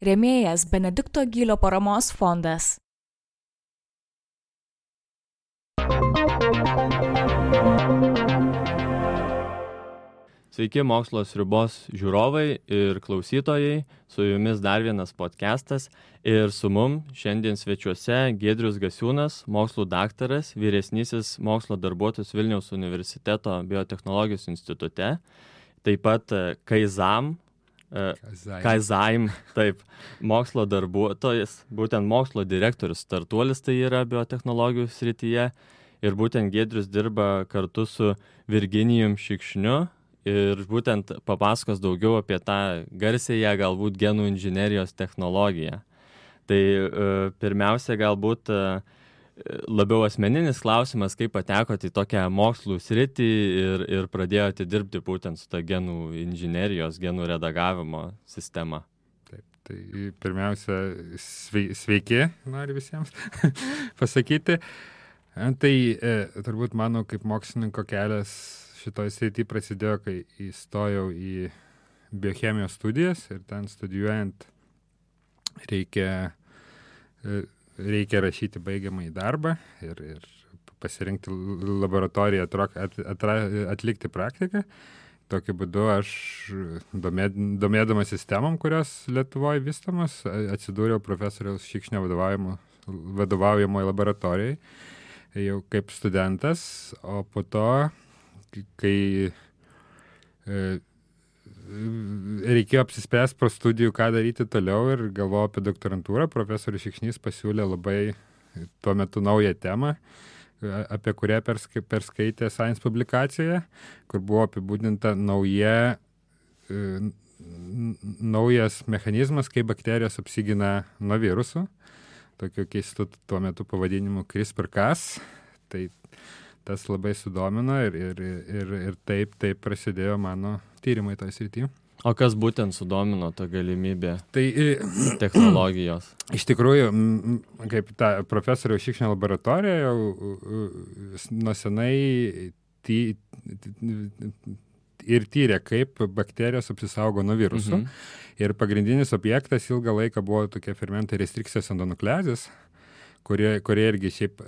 Rėmėjas Benedikto Gylio paramos fondas. Sveiki mokslo sriubos žiūrovai ir klausytojai, su jumis dar vienas podcastas ir su mum šiandien svečiuose Giedrius Gasiūnas, mokslų daktaras, vyresnysis mokslo darbuotojas Vilniaus universiteto biotechnologijos institute, taip pat Kaizaim, taip, mokslo darbuotojas, būtent mokslo direktorius startuolis tai yra biotechnologijų srityje ir būtent Giedrius dirba kartu su Virginijum Šikšniu ir būtent papasakos daugiau apie tą garsiąją galbūt genų inžinerijos technologiją. Tai pirmiausia galbūt labiau asmeninis klausimas, kaip patekote į tokią mokslų sritį ir pradėjote dirbti būtent su ta genų inžinerijos, genų redagavimo sistema. Taip, tai pirmiausia, sveiki, noriu visiems pasakyti. Tai turbūt mano kaip mokslininko kelias šitoj srity prasidėjo, kai įstojau į biochemijos studijas ir ten studijuojant reikia rašyti baigiamąjį darbą ir pasirinkti laboratoriją, atlikti praktiką. Tokiu būdu aš, domėdamas sistemom, kurios Lietuvoje vystomas, atsidūriau profesoriaus Šikšnio vadovaujamoje laboratorijai jau kaip studentas, o po to kai reikėjo apsispręsti po studijų, ką daryti toliau ir galvojau apie doktorantūrą, profesorius Šikšnys pasiūlė labai tuo metu naują temą, apie kurią perskaitė Science publikacijoje, kur buvo apibūdinta naujas mechanizmas, kaip bakterijos apsigina nuo virusų, tokiu keistu tuo metu pavadinimu CRISPR-Cas. Tai tas labai sudomino ir taip prasidėjo mano tyrimai toj srity. O kas būtent sudomino tą galimybę technologijos? Iš tikrųjų, kaip ta profesoriaus Šikšnio laboratorija jau nuo senai ir tyrė, kaip bakterijos apsisaugo nuo virusų. Ir pagrindinis objektas ilgą laiką buvo tokie fermentai restrikcijos endonukleazės, kurie irgi šiaip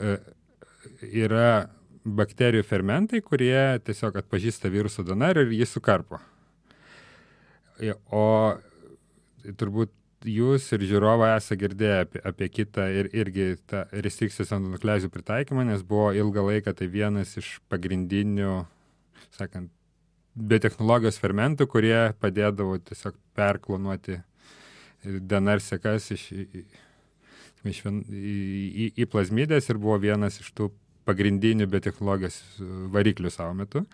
yra bakterijų fermentai, kurie tiesiog atpažįsta viruso DNR ir jį sukarpo. O turbūt jūs ir žiūrovai esate girdėję apie kitą ir irgi tą restrikcijos endonukleazių pritaikymą, nes buvo ilgą laiką tai vienas iš pagrindinių, sakant, biotechnologijos fermentų, kurie padėdavo tiesiog perklonuoti DNR sekas į plazmidės ir buvo vienas iš tų pagrindinių biotechnologijos variklių savo metu.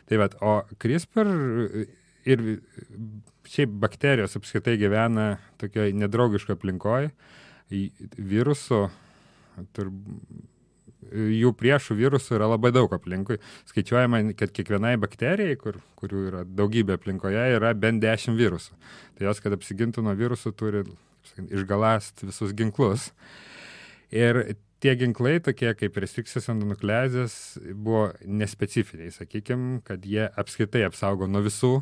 Tai vat, o CRISPR ir šiaip bakterijos apskritai gyvena tokioje nedraugiškoje aplinkoje. Virusų, jų priešų virusų yra labai daug aplinkui. Skaičiuojama, kad kiekvienai bakterijai, kurių yra daugybė aplinkoje, yra bent 10 virusų. Tai jos, kad apsigintų nuo virusų, turi išgalast visus ginklus. Ir tie ginklai, tokie kaip restrikcijos endonukleazės, buvo nespecifiniai, sakykime, kad jie apskritai apsaugo nuo visų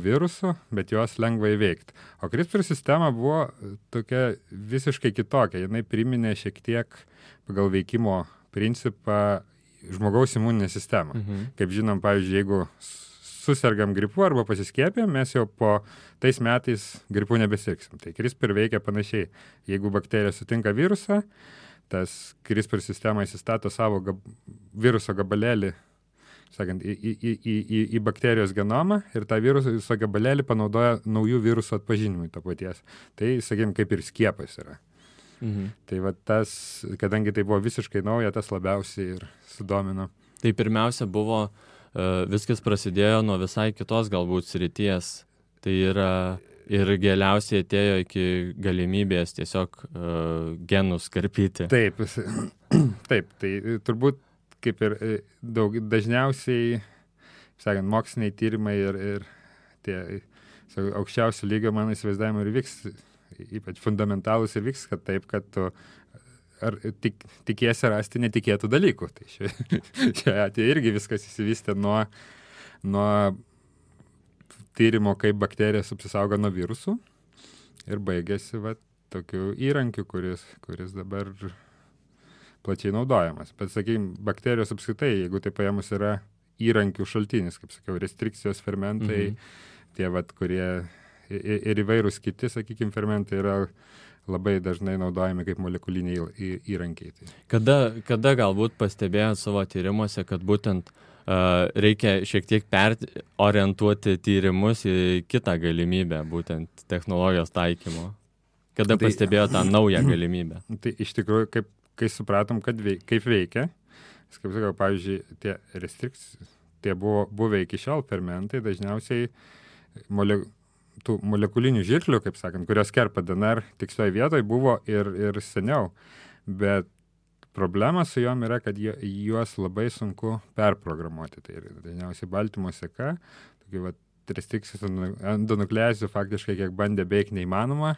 virusų, bet juos lengva įveikti. O CRISPR sistema buvo tokia visiškai kitokia. Jinai priminė šiek tiek pagal veikimo principą žmogaus imuninę sistemą. Kaip žinom, pavyzdžiui, jeigu susergam gripu arba pasiskiepėm, mes jau po tais metais gripu nebesirgsim. Tai CRISPR veikia panašiai. Jeigu bakterija sutinka virusą, tas CRISPR sistema įsistato savo viruso gabalėlį, sakant, į bakterijos genomą ir tą viruso gabalėlį panaudoja naujų virusų atpažinimui to paties. Tai, sakykime, kaip ir skiepas yra. Tai va tas, kadangi tai buvo visiškai nauja, tas labiausiai ir sudomino. Tai pirmiausia buvo, viskas prasidėjo nuo visai kitos galbūt srities. Tai yra ir galiausiai atėjo iki galimybės tiesiog genus karpyti. Taip, tai turbūt kaip ir dažniausiai, sakant, moksliniai tyrimai ir tie aukščiausio lygio mano įsivaizdavimai ir vyks, ypač fundamentalus ir vyks, kad taip, kad tu tikiesi rasti netikėtų dalykų. Tai čia atėjo irgi viskas įsivystė nuo tyrimo, kaip bakterijos apsisaugo nuo virusų. ir baigėsi tokiu įrankiu, kuris dabar plačiai naudojamas. Bet, sakykime, bakterijos apskritai, jeigu tai paėmus, yra įrankių šaltinis, kaip sakiau, restrikcijos fermentai, tie, kurie ir įvairūs kiti, sakykime, fermentai yra labai dažnai naudojami kaip molekuliniai įrankiai. Kada galbūt pastebėjot savo tyrimuose, kad būtent reikia šiek tiek perorientuoti tyrimus į kitą galimybę, būtent technologijos taikymo? Kada pastebėjo tą naują galimybę? Tai iš tikrųjų, kai supratom, kaip veikia, kaip sakau, pavyzdžiui, tie restrikcijos, tie buvo buvę iki šiol fermentai, dažniausiai tų molekulinių žirklių, kaip sakant, kurios kerpa DNR tikslioje vietoje, buvo ir seniau, bet problema su jom yra, kad juos labai sunku perprogramuoti. Tai dažniausiai baltymo seka, tokių restrikcijos endonukleazijų faktiškai kiek bandė beveik neįmanoma,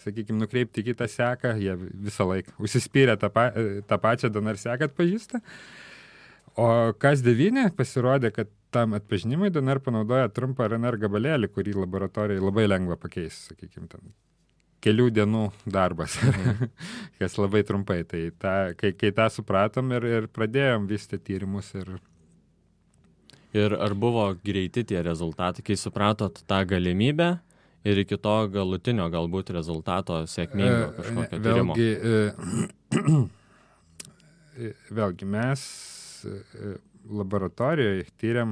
sakykime, nukreipti kitą seką, jie visą laiką užsispyrę tą pačią DNR seką atpažįsta. O Cas9 pasirodė, kad tam atpažinimui DNR panaudoja trumpą RNR gabalėlį, kurį laboratorijai labai lengva pakeis, sakykime, ten kelių dienų darbas, kas labai trumpai. Tai kai tą supratom ir pradėjom vystyti tyrimus. Ir ar buvo greiti tie rezultatai, kai supratot tą galimybę ir iki to galutinio galbūt rezultato sėkmingo kažkokio tyrimo? Vėlgi, mes laboratorijoje tyriam,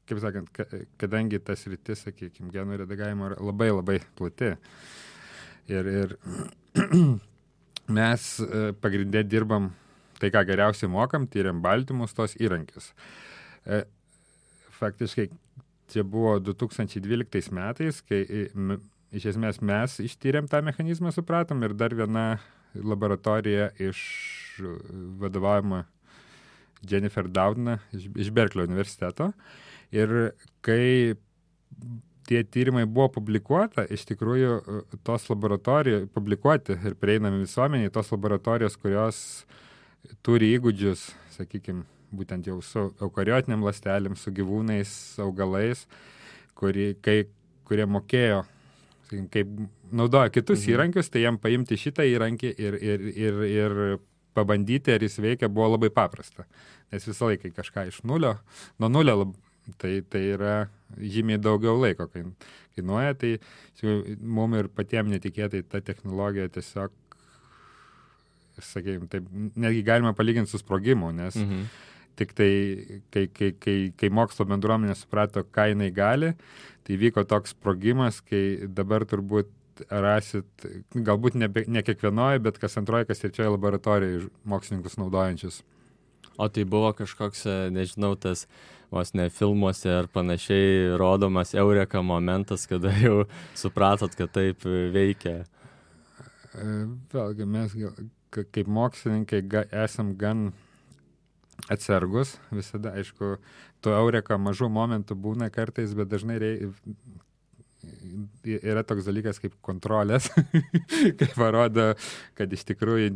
kaip sakant, kadangi tas sritis, sakykime, genų redagavimo yra labai labai plati. Ir mes pagrindė dirbam tai, ką geriausiai mokam, tyriam baltymus, tos įrankius. Faktiškai čia buvo 2012 metais, kai iš esmės mes ištyrėm tą mechanizmą, supratom, ir dar viena laboratorija iš vadovaujama Jennifer Doudna iš Berkelio universiteto. Ir kai tie tyrimai buvo publikuota, iš tikrųjų tos laboratorijos publikuoti ir prieinami visuomeniai, tos laboratorijos, kurios turi įgūdžius, sakykime, būtent jau su eukariotiniam ląstelėm, su gyvūnais, augalais, kurie mokėjo, sakykime, kaip naudoja kitus įrankius, tai jam paimti šitą įrankį ir pabandyti, ar jis veikia, buvo labai paprasta. Nes visą laiką kažką iš nuo nulio, tai yra žymiai daugiau laiko kainuoja, tai mums ir patiems netikėtai ta technologija tiesiog, sakykime, taip, netgi galima palyginti su sprogimu, nes tik tai, kai mokslo bendruomenė suprato, ką jinai gali, tai vyko toks sprogimas, kai dabar turbūt rasit, galbūt ne kiekvienoje, bet kas antroje, kas trečioje laboratorijoje mokslininkus naudojančius. O tai buvo kažkoks, nežinau, tas vos ne filmuose ar panašiai rodomas eureka momentas, kada jau supratot, kad taip veikia? Vėlgi, mes kaip mokslininkai esam gan atsargus visada, aišku, to eureka mažų momentų būna kartais, bet dažnai yra toks dalykas kaip kontrolės, kai parodo, kad iš tikrųjų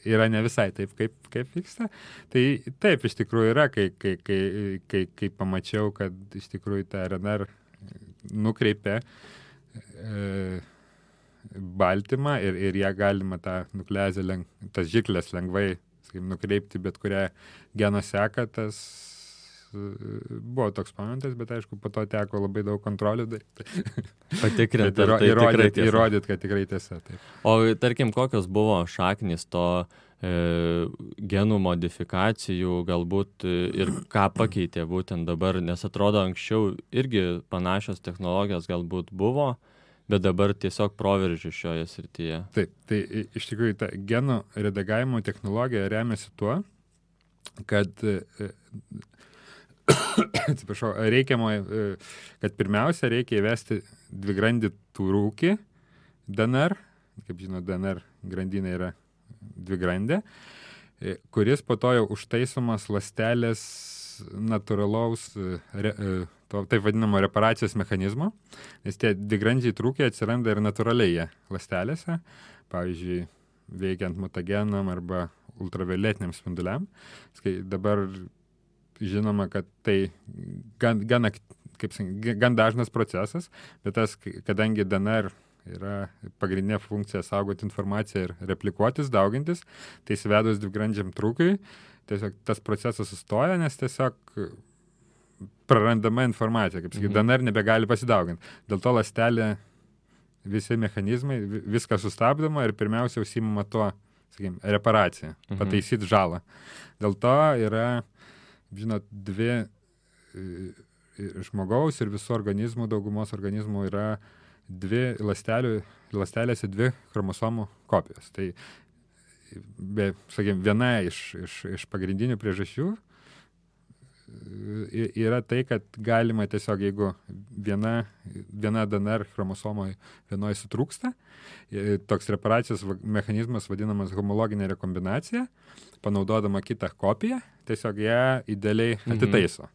yra ne visai taip, kaip vyksta. Tai taip iš tikrųjų yra, kai pamačiau, kad iš tikrųjų tą RNR nukreipė baltymą ir ją galima tą nukleazę, tas žirkles lengvai nukreipti bet kurią geno seką, tas buvo toks momentas, bet aišku, po to teko labai daug kontrolių daryti. Patikrinti, įrodyti, kad tikrai tiesa. Taip. O tarkim, kokios buvo šaknys to genų modifikacijų galbūt ir ką pakeitė būtent dabar, nes atrodo anksčiau irgi panašios technologijos galbūt buvo, bet dabar tiesiog proveržį šioje srityje. Taip, tai iš tikrųjų ta genų redagavimo technologija remiasi tuo, kad atsiprašau, kad pirmiausia reikia įvesti dvigrandį rūkį DNR, kaip žinot, DNR grandinė yra dvigrandė, kuris po to jau užtaisomas ląstelės natūralaus taip vadinamo reparacijos mechanizmo, nes tie dvigrandžiai trūkiai atsiranda ir natūraliai ląstelėse, pavyzdžiui, veikiant mutagenam arba ultravioletiniam spinduliam. Dabar žinoma, kad tai gan dažnas procesas, bet kadangi DNR yra pagrindinė funkcija saugoti informaciją ir replikuotis, daugintis. Tai įsivedus dvigrandžiam trūkiui, tiesiog tas procesas sustoja, nes tiesiog prarandama informacija, kaip sakyti, DNR nebegali pasidauginti. Dėl to ląstelė, visi mechanizmai, viskas sustabdoma ir pirmiausia užsiimama tuo, sakykime, reparacija, pataisyti žalą. Dėl to yra, žinot, dvi žmogaus ir visų organizmų, daugumos organizmų yra dvi ląstelėse dvi chromosomų kopijos. Tai, sakykime, viena iš pagrindinių priežasčių yra tai, kad galima tiesiog, jeigu viena DNR chromosomoje vienoje sutrūksta, toks reparacijos mechanizmas vadinamas homologinė rekombinacija, panaudodama kitą kopiją, tiesiog ją idealiai atitaiso.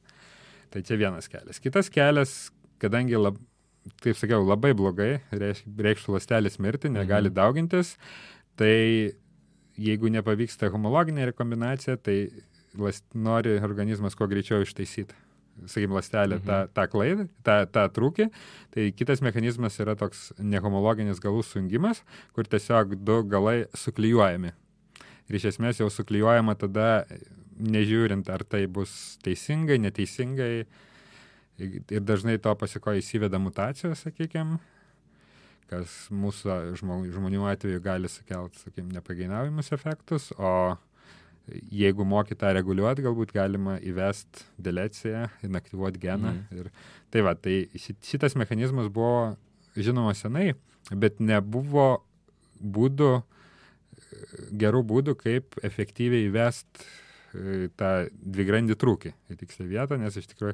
Tai čia vienas kelias. Kitas kelias, kadangi, taip sakiau, labai blogai, reikštų ląstelės mirti, negali daugintis, tai jeigu nepavyksta homologinė rekombinacija, tai nori organizmas kuo greičiau ištaisyti, sakykime, ląstelę tą klaidą, tą trūkį. Tai kitas mechanizmas yra toks nehomologinis galų sujungimas, kur tiesiog du galai suklijuojami. Ir iš esmės jau suklijuojama tada, nežiūrint, ar tai bus teisingai, neteisingai. Ir dažnai to pasikoja įsiveda mutacijos, sakykime, kas mūsų žmonių atveju gali sukelti, sakykime, nepageidavimus efektus, o jeigu moki tą reguliuoti, galbūt galima įvesti deleciją, inaktyvuoti geną. Ir tai va, tai šitas mechanizmas buvo žinoma senai, bet nebuvo gerų būdų, kaip efektyviai įvesti tą dvigrandį trūkį į tikslę vietą, nes iš tikrųjų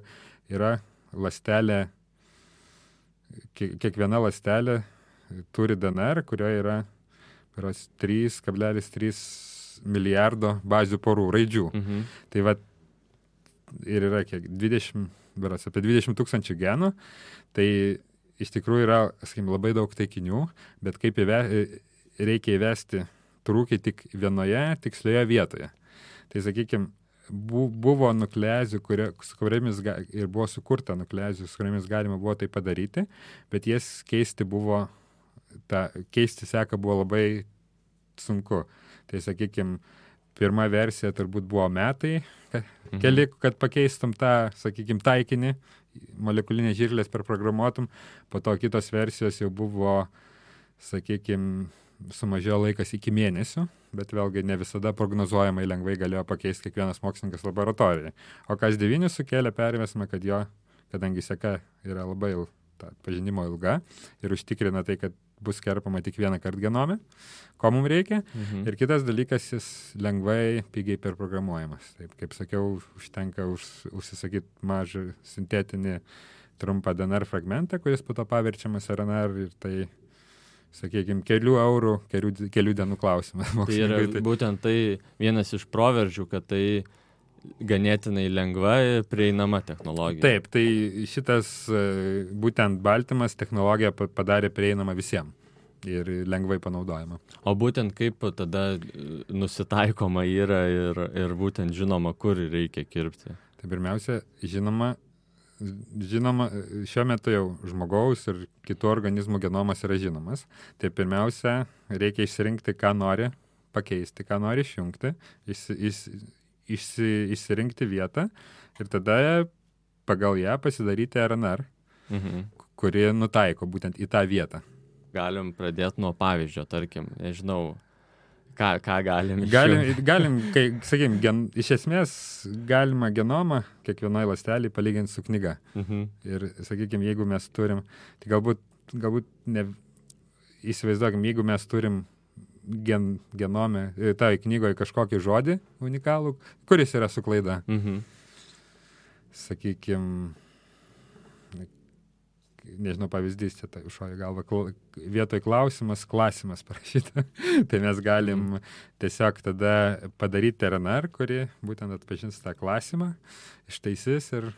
yra ląstelė, kiekviena ląstelė turi DNR, kurioje yra 3,3 milijardo bazių porų raidžių. Tai va, ir yra kiek, apie 20 tūkstančių genų, tai iš tikrųjų yra, sakykime, labai daug taikinių, bet kaip reikia įvesti trūkį tik vienoje tikslioje vietoje. Tai, sakykime, buvo nukleazių, su kuriamis ir buvo sukurta nukleazių, su kuriamis galima buvo tai padaryti, bet jas keisti seką buvo labai sunku. Tai, sakykime, pirma versija turbūt buvo metai, keli, kad pakeistum tą, sakykime, taikinį, molekulinės žirklės perprogramuotum, po to kitos versijos jau buvo, sakykime, sumažėjo laikas iki mėnesių, bet vėlgi ne visada prognozuojamai lengvai galėjo pakeisti kiekvienas mokslininkas laboratorijoje. O kas 9 sukėlė, pervesime, kad kadangi seka yra labai pažinimo ilga ir užtikrina tai, kad bus kerpama tik vieną kartą genome, ko mums reikia. Ir kitas dalykas, jis lengvai, pigiai perprogramuojamas. Taip, kaip sakiau, užtenka užsisakyti mažą sintetinį trumpą DNR fragmentą, kuris po to paverčiamas RNR ir tai, sakykime, kelių eurų, kelių dienų klausimas. Tai yra būtent tai vienas iš proveržių, kad tai ganėtinai lengva ir prieinama technologija. Taip, tai šitas būtent baltymas technologija padarė prieinamą visiems ir lengvai panaudojama. O būtent kaip tada nusitaikoma yra ir būtent žinoma, kur reikia kirpti? Tai pirmiausia, žinoma, šiuo metu jau žmogaus ir kitų organizmų genomas yra žinomas. Tai pirmiausia, reikia išsirinkti, ką nori pakeisti, ką nori išjungti, išsirinkti vietą ir tada pagal ją pasidaryti RNR, kuri nutaiko būtent į tą vietą. Galim pradėti nuo pavyzdžio, tarkim, nežinau, ką galim Galim, sakykime, iš esmės galima genomą kiekvienai ląstelei palyginti su knyga. Ir, sakykime, jeigu mes turim, tai galbūt ne, įsivaizduokim, jeigu mes turim genome, tai knygoje kažkokį žodį unikalų, kuris yra su klaida. Sakykime, nežinau, pavyzdys, čia šoja galva, vietoj klausimas, klasimas parašyta. Tai mes galim tiesiog tada padaryti RNR, kuri būtent atpažins tą klasimą, ištaisys ir...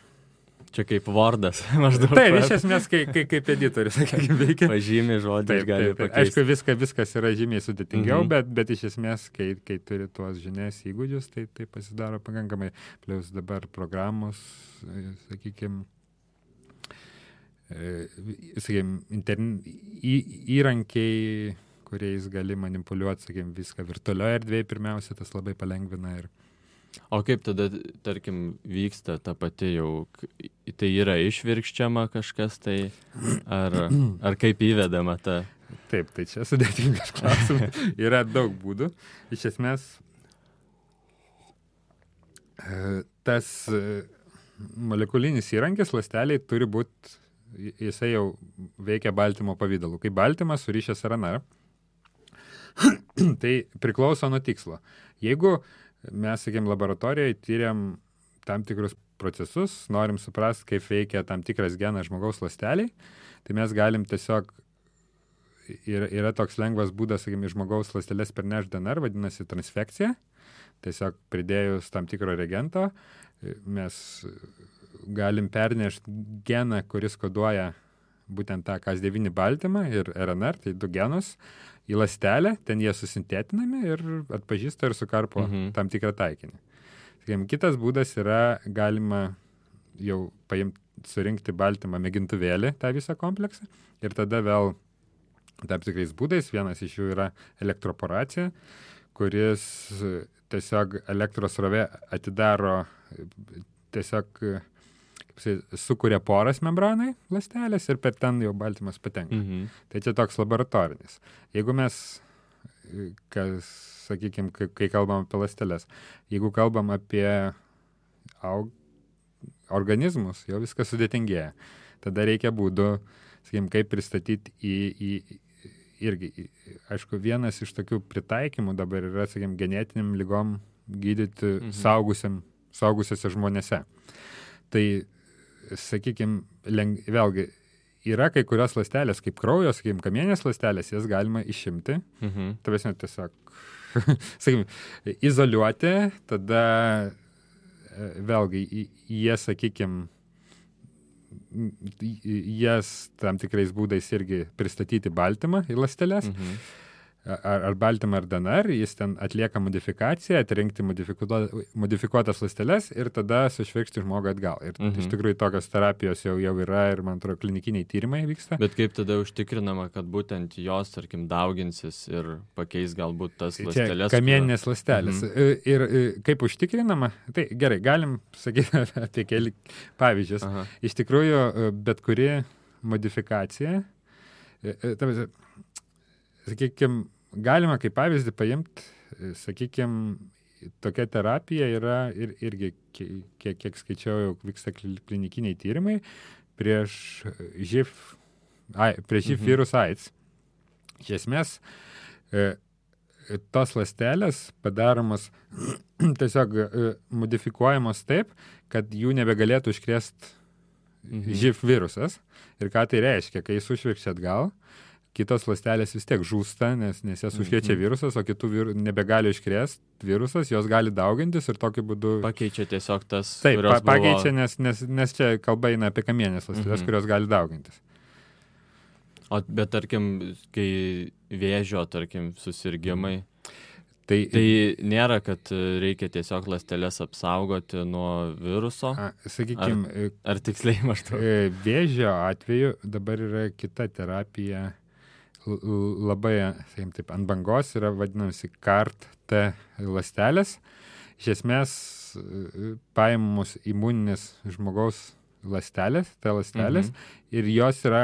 Čia kaip Wordas, maždaug. Taip, iš esmės, kaip editorius, sakykime, veikia. Pažymė žodį, gali pakeisti. Aišku, viskas yra žymiai sudėtingiau, bet iš esmės, kai turi tuos žinias įgūdžius, tai pasidaro pakankamai. Plius dabar programos, sakykime, įrankiai, kuriais gali manipuliuoti, viską virtualioje erdvėje pirmiausia, tas labai palengvina. O kaip tada, tarkim, vyksta ta pati jau, tai yra išvirkščiama kažkas, tai ar kaip įvedama ta? Taip, tai čia sudėtingas klausimas. Yra daug būdų. Iš esmės, tas molekulinis įrankis ląsteliai turi būti, jisai jau veikia baltymo pavidalu. Kai baltymas surišęs RNR, tai priklauso nuo tikslo. Jeigu mes, laboratorijoje tyriam tam tikrus procesus, norim suprasti, kaip veikia tam tikras genas žmogaus ląsteliai, tai mes galim tiesiog, yra toks lengvas būdas, žmogaus ląsteles pernešti DNR, vadinasi transfekcija. Tiesiog pridėjus tam tikro reagento, mes galim pernešti geną, kuris koduoja būtent tą Cas9 baltymą ir RNR, tai 2 genus, į ląstelę, ten jie susintetinami ir atpažįsta ir sukarpo tam tikrą taikinį. Kitas būdas yra, galima jau surinkti baltymą mėgintuvėlį, tą visą kompleksą, ir tada vėl tam tikrais būdais, vienas iš jų yra elektroporacija, kuris tiesiog elektros srovė atidaro, tiesiog sukuria poras membranai ląstelės ir per ten jau baltymas patenka. Tai čia toks laboratorinis. Jeigu mes, kai kalbam apie ląsteles, jeigu kalbam apie organizmus, jau viskas sudėtingėja. Tada reikia būdų, kaip pristatyti irgi, aišku, vienas iš tokių pritaikymų dabar yra, genetiniam ligom gydyti saugusiuose žmonėse. Tai, vėlgi, yra kai kurios ląstelės, kaip kraujo, kamienės ląstelės, jas galima išimti. Tavęs tiesiog, izoliuoti, tada vėlgi, jas tam tikrais būdais irgi pristatyti baltymą į ląsteles, ar baltymą ar DNR, jis ten atlieka modifikaciją, atrinkti modifikuotas ląsteles ir tada sušvirkšti žmogų atgal. Ir iš tikrųjų tokios terapijos jau yra ir, man atrodo, klinikiniai tyrimai vyksta. Bet kaip tada užtikrinama, kad būtent jos, tarkim, dauginsis ir pakeis galbūt tas ląsteles? Kamieninės ląstelės. Ir kaip užtikrinama, tai gerai, galim sakyti apie keli pavyzdžius. Iš tikrųjų, bet kuri modifikacija, galima kaip pavyzdį paimti, tokia terapija yra irgi, kiek skaičiau, jau vyksta klinikiniai tyrimai prieš živ virus AIDS. Iš esmės, tos ląstelės padaromos tiesiog modifikuojamos taip, kad jų nebegalėtų užkrėsti živ virusas. Ir ką tai reiškia, kai jis užvirkščia atgal, kitos ląstelės vis tiek žūsta, nes jas užkrečia virusas, o kitų nebegali iškrėsti virusas, jos gali daugintis ir tokiu būdu... Pakeičia tiesiog tas, taip, pakeičia, nes čia kalba eina apie kamienės ląsteles, kurios gali daugintis. Bet tarkim, kai vėžio, tarkim, susirgimai, tai nėra, kad reikia tiesiog ląsteles apsaugoti nuo viruso? Ar tiksliai maždaug? Vėžio atveju dabar yra kita terapija, labai, taip, ant bangos yra vadinasi CAR-T ląstelės. Iš esmės paimamos imuninės žmogaus ląstelės, ir jos yra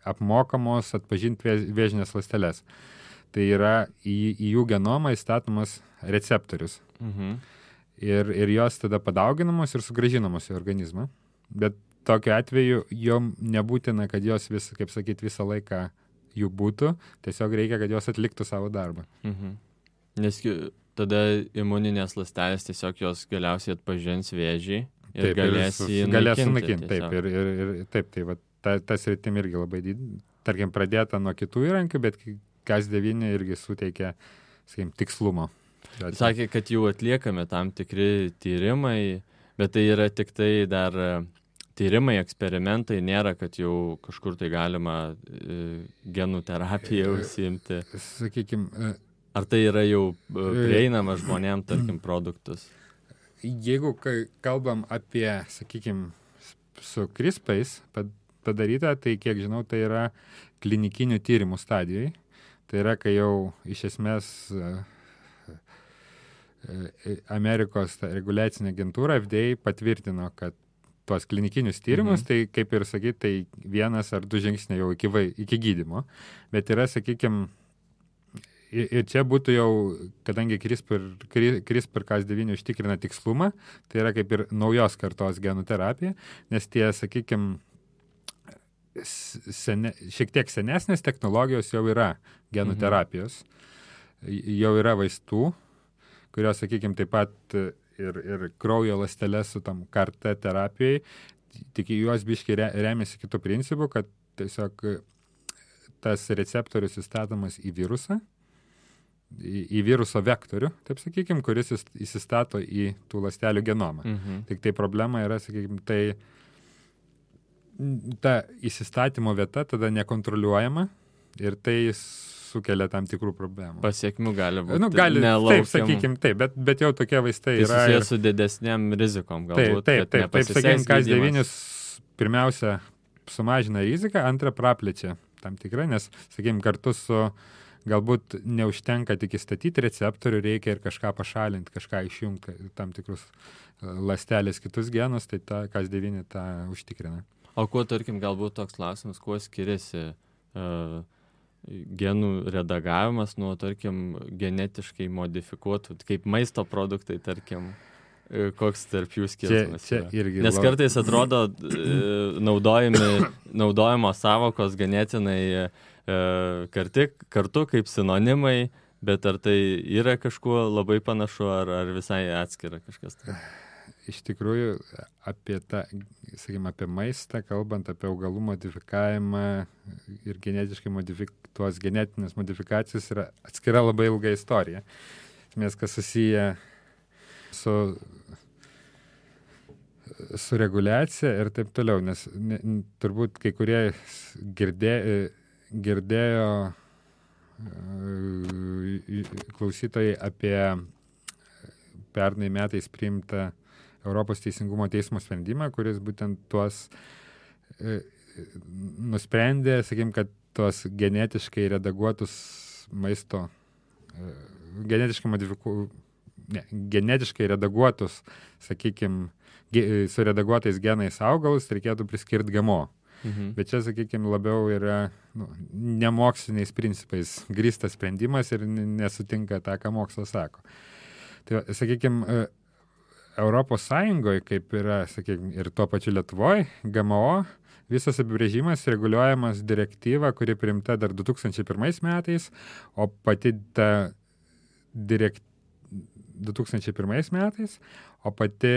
apmokamos atpažinti vėžinės ląsteles. Tai yra į jų genomą įstatomas receptorius. Ir jos tada padauginamos ir sugrąžinamos į organizmą. Bet tokiu atveju jom nebūtina, kad jos visą laiką jų būtų, tiesiog reikia, kad jos atliktų savo darbą. Nes tada imuninės ląstelės tiesiog jos galiausiai atpažins vėžį ir galės jį naikinti. Taip, ir taip, tai va, tas rytim irgi labai tarkim, pradėta nuo kitų įrankių, bet Cas9 irgi suteikia, tikslumo. Sakė, kad jau atliekame tam tikri tyrimai, bet tai yra tik tai dar tyrimai, eksperimentai, nėra, kad jau kažkur tai galima genų terapiją užsiimti. Ar tai yra jau prieinama žmonėm, tarkim, produktus? Jeigu kalbam apie, su CRISPR'ais padaryta, tai kiek žinau, tai yra klinikinių tyrimų stadijai. Tai yra, kai jau iš esmės Amerikos reguliacinė agentūra FDA patvirtino, kad tuos klinikinius tyrimus, tai kaip ir sakyt, tai 1 ar 2 žingsniai jau iki gydymo. Bet yra, sakykime, ir čia būtų jau, kadangi CRISPR-Cas9 užtikrina tikslumą, tai yra kaip ir naujos kartos genų terapija, nes tie, sakykime, šiek tiek senesnės technologijos jau yra genų terapijos, jau yra vaistų, kurios, sakykime, taip pat ir kraujo ląsteles su tam CAR-T terapijai, tik juos biškai remiasi kitų principų, kad tiesiog tas receptorius įstatomas į virusą, į viruso vektorių, taip sakykime, kuris įsistato į tų ląstelių genomą. Tik tai problema yra, sakykime, tai ta įsistatymo vieta tada nekontroliuojama ir tai sukelia tam tikrų problemų. Pasiekmių gali būti. Nelaukiam. Taip, sakykime, taip, bet jau tokie vaistai tai yra. Tai susijęs su didesniam rizikom galbūt. Taip, sakykime, Cas9 pirmiausia sumažina riziką, antra praplečia tam tikrą, nes, sakykime, kartu su galbūt neužtenka tik įstatyti receptorių, reikia ir kažką pašalinti, kažką išjungti, tam tikrus ląstelės kitus genus, tai ta Cas9 tą užtikrina. O kuo, tarkim, galbūt toks klausimas, kuo skiriasi genų redagavimas nuo, tarkim, genetiškai modifikuotų, kaip maisto produktai, tarkim, koks tarp jų skirtumas čia irgi Nes kartais atrodo naudojamos savokos ganėtinai kartu kaip sinonimai, bet ar tai yra kažkuo labai panašu, ar visai atskira kažkas tai? Iš tikrųjų, apie tą, sakykime, apie maistą, kalbant apie augalų modifikavimą ir genetiškai tuos genetinės modifikacijos yra atskira labai ilga istorija. Nes kas susiję su reguliacija ir taip toliau, nes turbūt kai kurie girdėjo klausytojai apie pernai metais priimtą Europos teisingumo teismo sprendimą, kuris būtent tuos nusprendė, sakykime, kad tuos genetiškai redaguotus maisto, genetiškai redaguotus, sakykime, su redaguotais genais augalus reikėtų priskirti GMO. Bet čia, sakykime, labiau yra nemoksliniais principais grįstas sprendimas ir nesutinka tą, ką mokslas sako. Tai, sakykime, Europos Sąjungoje, kaip yra, sakykime, ir tuo pačiu Lietuvoje, GMO, visas apibrėžimas reguliuojamas direktyva, kuri priimta dar 2001 metais, o pati ta 2001 metais, o pati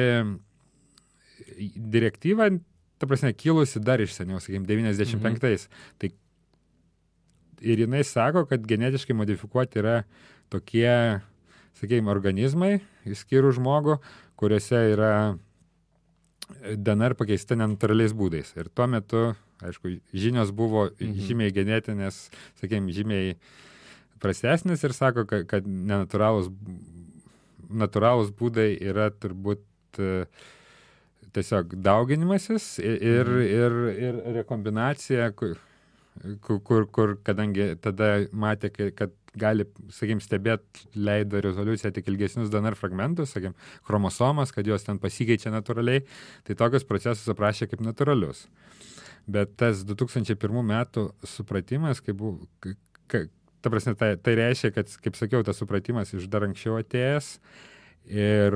direktyva, ta prasme, kilusi dar iš seniau, sakykime, 95. Tai ir jinai sako, kad genetiškai modifikuoti yra tokie, sakykime, organizmai, išskyrus žmogų, kuriuose yra DNR pakeista nenatūraliais būdais. Ir tuo metu, aišku, žinios buvo žymiai genetinės, sakykime, žymiai prastesnės ir sako, kad natūralūs būdai yra turbūt tiesiog dauginimasis ir rekombinacija, kur kadangi tada matė, kad gali, sakykime, stebėti, leido rezoliuciją tik ilgesnius DNR fragmentus, sakykime, chromosomas, kad jos ten pasikeičia natūraliai, tai tokius procesus aprašė kaip natūralius. Bet tas 2001 metų supratimas, ta prasme, tai reiškia, kad, kaip sakiau, tas supratimas iš dar anksčiau atėjęs ir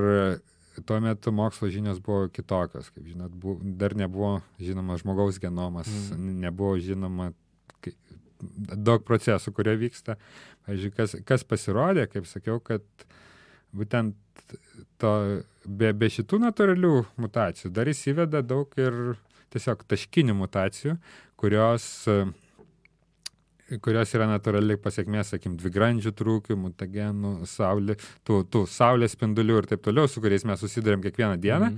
tuo metu mokslo žinios buvo kitokios, kaip žinot, dar nebuvo žinoma žmogaus genomas, nebuvo žinoma daug procesų, kurie vyksta. Pavyzdžiui, kas pasirodė, kaip sakiau, kad būtent be šitų natūralių mutacijų dar įsiveda daug ir tiesiog taškinių mutacijų, kurios yra natūraliai pasiekmės, sakykim, dvigrandžių trūkių, mutagenų, tų saulės spindulių ir taip toliau, su kuriais mes susidurėm kiekvieną dieną.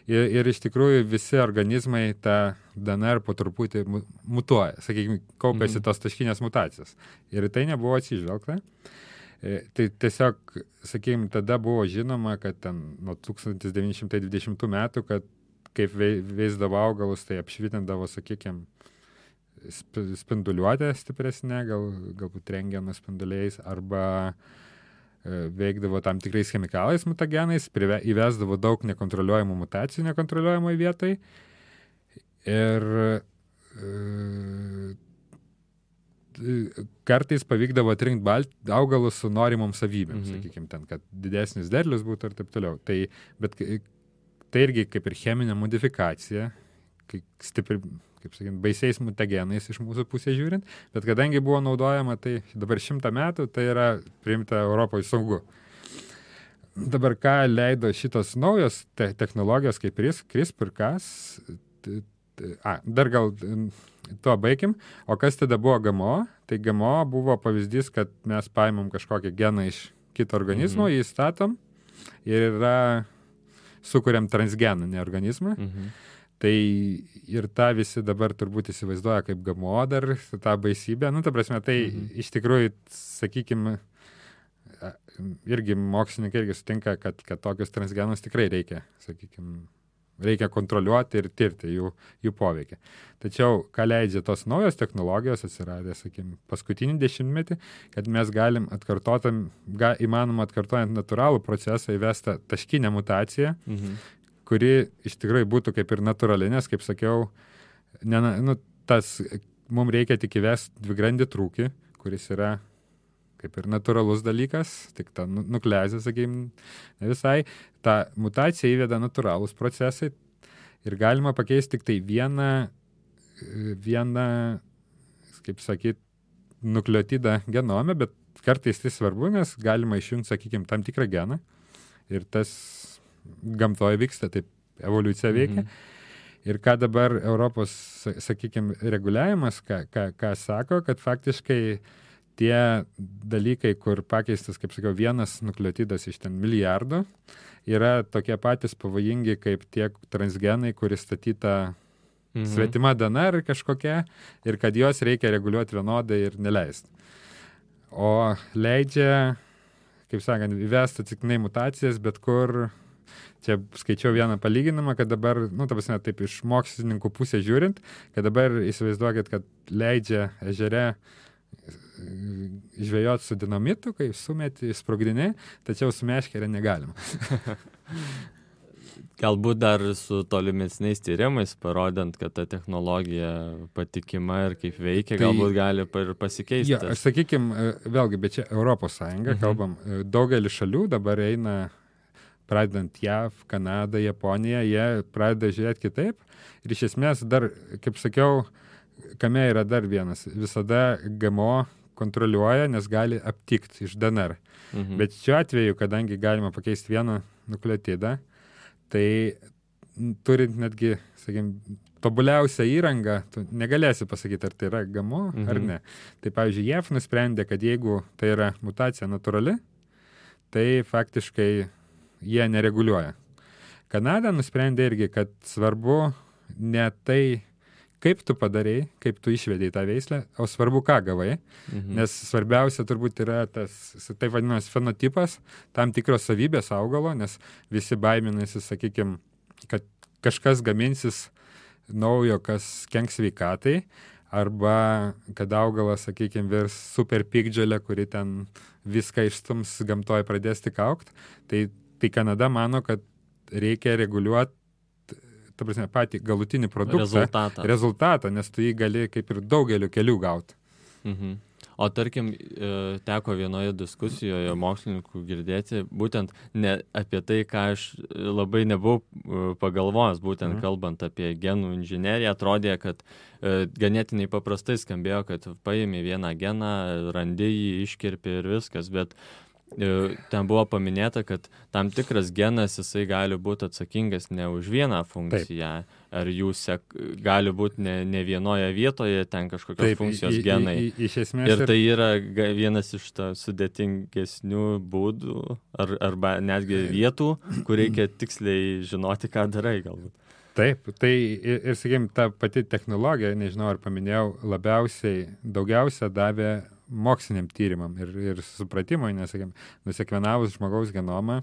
Ir iš tikrųjų visi organizmai tą DNR po truputį mutuoja, sakykime, kaupiasi tos taškinės mutacijos. Ir tai nebuvo atsižvelgta. Tai tiesiog, sakykime, tada buvo žinoma, kad ten nuo 1920 metų, kad kaip veisdavo augalus, tai apšvitindavo, sakykime, spinduliuotę stipresnė, galbūt rentgeno spinduliais, arba veikdavo tam tikrais chemikalais mutagenais, įvesdavo daug nekontroliuojamų mutacijų nekontroliuojamoj vietai. Ir kartais pavykdavo atrinkti augalus su norimom savybėm, sakykime, ten, kad didesnis derlius būtų ir taip toliau. Bet tai irgi kaip ir cheminė modifikacija, stipri, kaip sakant, baisiais mutagenais iš mūsų pusės žiūrint, bet kadangi buvo naudojama, tai dabar 100 metų, tai yra priimta Europoje saugu. Dabar ką leido šitos naujos technologijos, kaip CRISPR-Cas, dar gal tuo baigim, o kas tada buvo GMO? Tai GMO buvo pavyzdys, kad mes paimam kažkokią geną iš kito organizmo, jį statom ir sukuriam transgeną, ne organizmą. Tai ir tą visi dabar turbūt įsivaizduoja kaip GMO dar, tą baisybę. Ta prasme, tai iš tikrųjų, sakykime, irgi mokslininkai irgi sutinka, kad tokius transgenus tikrai reikia, sakykime, reikia kontroliuoti ir tirti jų poveikį. Tačiau, ką leidžia tos naujos technologijos atsiradė, sakykime, paskutinį 10-metį, kad mes galim įmanoma atkartojant natūralų procesą įvesti taškinę mutaciją, kuri iš tikrųjų būtų kaip ir natūrali, nes, kaip sakiau, mums reikia tik įvesti dvigrandį trūkį, kuris yra kaip ir natūralus dalykas, tik ta nukleazė, sakykime, ne visai. Ta mutacija įveda natūralūs procesai ir galima pakeisti tik tai vieną, kaip sakyt, nukleotidą genome, bet kartais tai svarbu, nes galima išjungti, sakykime, tam tikrą geną ir tas gamtoje vyksta, taip evoliucija veikia. Ir ką dabar Europos, sakykime, reguliavimas, ką sako, kad faktiškai tie dalykai, kur pakeistas, kaip sakiau, vienas nukleotidas iš ten milijardo, yra tokie patys pavojingi kaip tie transgenai, kuris statyta svetima DNR kažkokia, ir kad juos reikia reguliuoti vienodai ir neleisti. O leidžia, kaip sakant, įvesti atsitiktinai mutacijas, bet kur. Čia skaičiau vieną palyginimą, kad dabar, ta prasme, taip iš mokslininkų pusės žiūrint, kad dabar įsivaizduokit, kad leidžia ežere žvejoti su dinamitu, kai sumeti, sprogdini, tačiau su meškere negalima. Galbūt dar su tolimesniais tyrimais, parodant, kad ta technologija patikima ir kaip veikia, galbūt gali ir pasikeisti. Ja, aš sakykime, vėlgi, bet čia Europos Sąjunga, kalbam, daugelį šalių dabar eina, pradedant JAV, Kanadą, Japoniją, jie pradeda žiūrėti kitaip. Ir iš esmės dar, kaip sakiau, kame yra dar vienas. Visada GMO kontroliuoja, nes gali aptikti iš DNR. Bet šiuo atveju, kadangi galima pakeisti vieną nukleotidą, tai turint netgi, sakykime, tobuliausią įrangą, tu negalėsi pasakyti, ar tai yra GMO ar ne. Tai, pavyzdžiui, JAV nusprendė, kad jeigu tai yra mutacija natūrali, tai faktiškai jie nereguliuoja. Kanada nusprendė irgi, kad svarbu ne tai, kaip tu padarei, kaip tu išvedei tą veislę, o svarbu, ką gavai. Nes svarbiausia turbūt yra tas, taip vadinamas, fenotipas, tam tikros savybės augalo, nes visi baiminasi, sakykime, kad kažkas gaminsis naujo, kas kenks sveikatai, arba kad augalas, sakykime, virs super piktžolė, kuri ten viską išstums gamtoje pradės tik augti. Tai Kanada mano, kad reikia reguliuoti, ta prasme, patį galutinį produktą, rezultatą, nes tu jį gali kaip ir daugeliu kelių gauti. O tarkim, teko vienoje diskusijoje mokslininkų girdėti, būtent ne apie tai, ką aš labai nebuvau pagalvojęs, būtent kalbant apie genų inžineriją, atrodė, kad ganėtinai paprastai skambėjo, kad paimi vieną geną, randi jį, iškirpi ir viskas, bet ten buvo paminėta, kad tam tikras genas jisai gali būti atsakingas ne už vieną funkciją, ar jūs gali būti ne vienoje vietoje ten kažkokios funkcijos genai. Iš esmės ir tai yra vienas iš sudėtingesnių būdų, arba netgi vietų, kur reikia tiksliai žinoti, ką darai galbūt. Taip, tai ir sakykime, ta pati technologija, nežinau, ar paminėjau, daugiausia davė moksliniam tyrimam ir supratimui, nes, sakykime, nusekvenavus žmogaus genomą,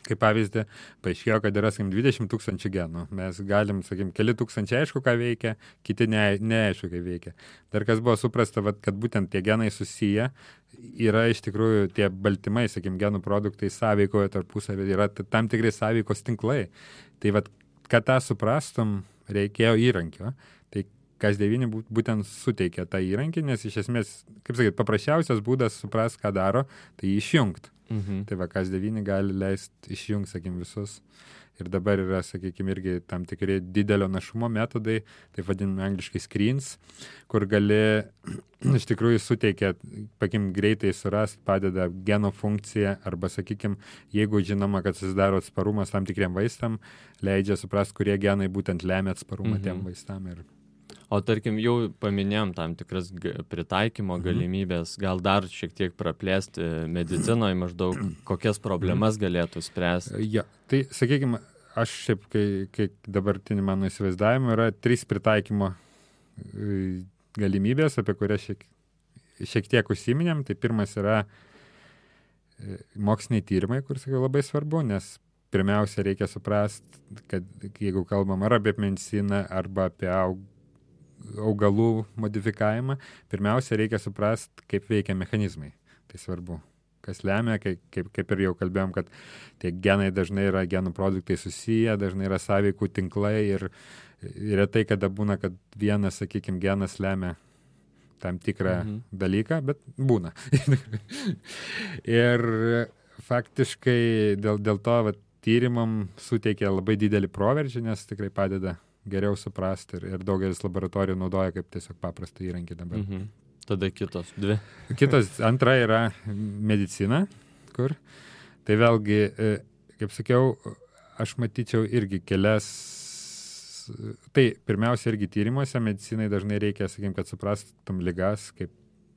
Kaip pavyzdį, paaiškėjo, kad yra, sakykim, 20 000 genų. Mes galim, sakykim, keli tūkstančiai aišku, ką veikia, kiti neaišku, kaip veikia. Dar kas buvo suprasta, kad būtent tie genai susiję, yra iš tikrųjų tie baltymai, sakykim, genų produktai sąveikoje tarpusavį, yra tam tikrai sąveikos tinklai. Tai kad tą suprastum, reikėjo įrankio. Tai Cas9 būtent suteikia tą įrankį, nes iš esmės, kaip sakyt, paprasčiausias būdas suprast, ką daro, tai išjungti. Tai Cas9 gali leisti išjungti, sakykim, visus. Ir dabar yra, sakykim, irgi tam tikri didelio našumo metodai, tai vadinami angliškai screens, kur gali iš tikrųjų suteikia, pakim, greitai surast, padeda geno funkciją, arba, sakykim, jeigu žinoma, kad susidaro atsparumas tam tikriem vaistam, leidžia suprast, kurie genai būtent lemia atsparumą tiem vaistam. O tarkim, jau paminėjom tam tikras pritaikymo galimybės, gal dar šiek tiek praplėsti medicinoje maždaug, kokias problemas galėtų spręsti? Ja, tai, sakykime, aš šiaip, kai dabartinį mano įsivaizdavimą, yra 3 pritaikymo galimybės, apie kurias šiek tiek užsiminėm. Tai pirmas yra moksliniai tyrimai, kur, sakiau, labai svarbu, nes pirmiausia reikia suprasti, kad jeigu kalbam ar apie mediciną, arba apie augalų modifikavimą, pirmiausia reikia suprasti, kaip veikia mechanizmai. Tai svarbu. Kas lemia, kaip ir jau kalbėjom, kad tie genai dažnai yra genų produktai susiję, dažnai yra sąveikų tinklai ir retai kada būna, kad vienas, sakykime, genas lemia tam tikrą dalyką, bet būna. Ir faktiškai dėl to tyrimam suteikia labai didelį proveržį, nes tikrai padeda geriau suprasti ir daugelis laboratorijų naudoja kaip tiesiog paprastą įrankį dabar. Tada kitos 2. Antra yra medicina, kur. Tai vėlgi, kaip sakiau, aš matyčiau irgi kelias. Tai pirmiausia irgi tyrimuose medicinai dažnai reikia, sakykim, kad suprastum ligas, kaip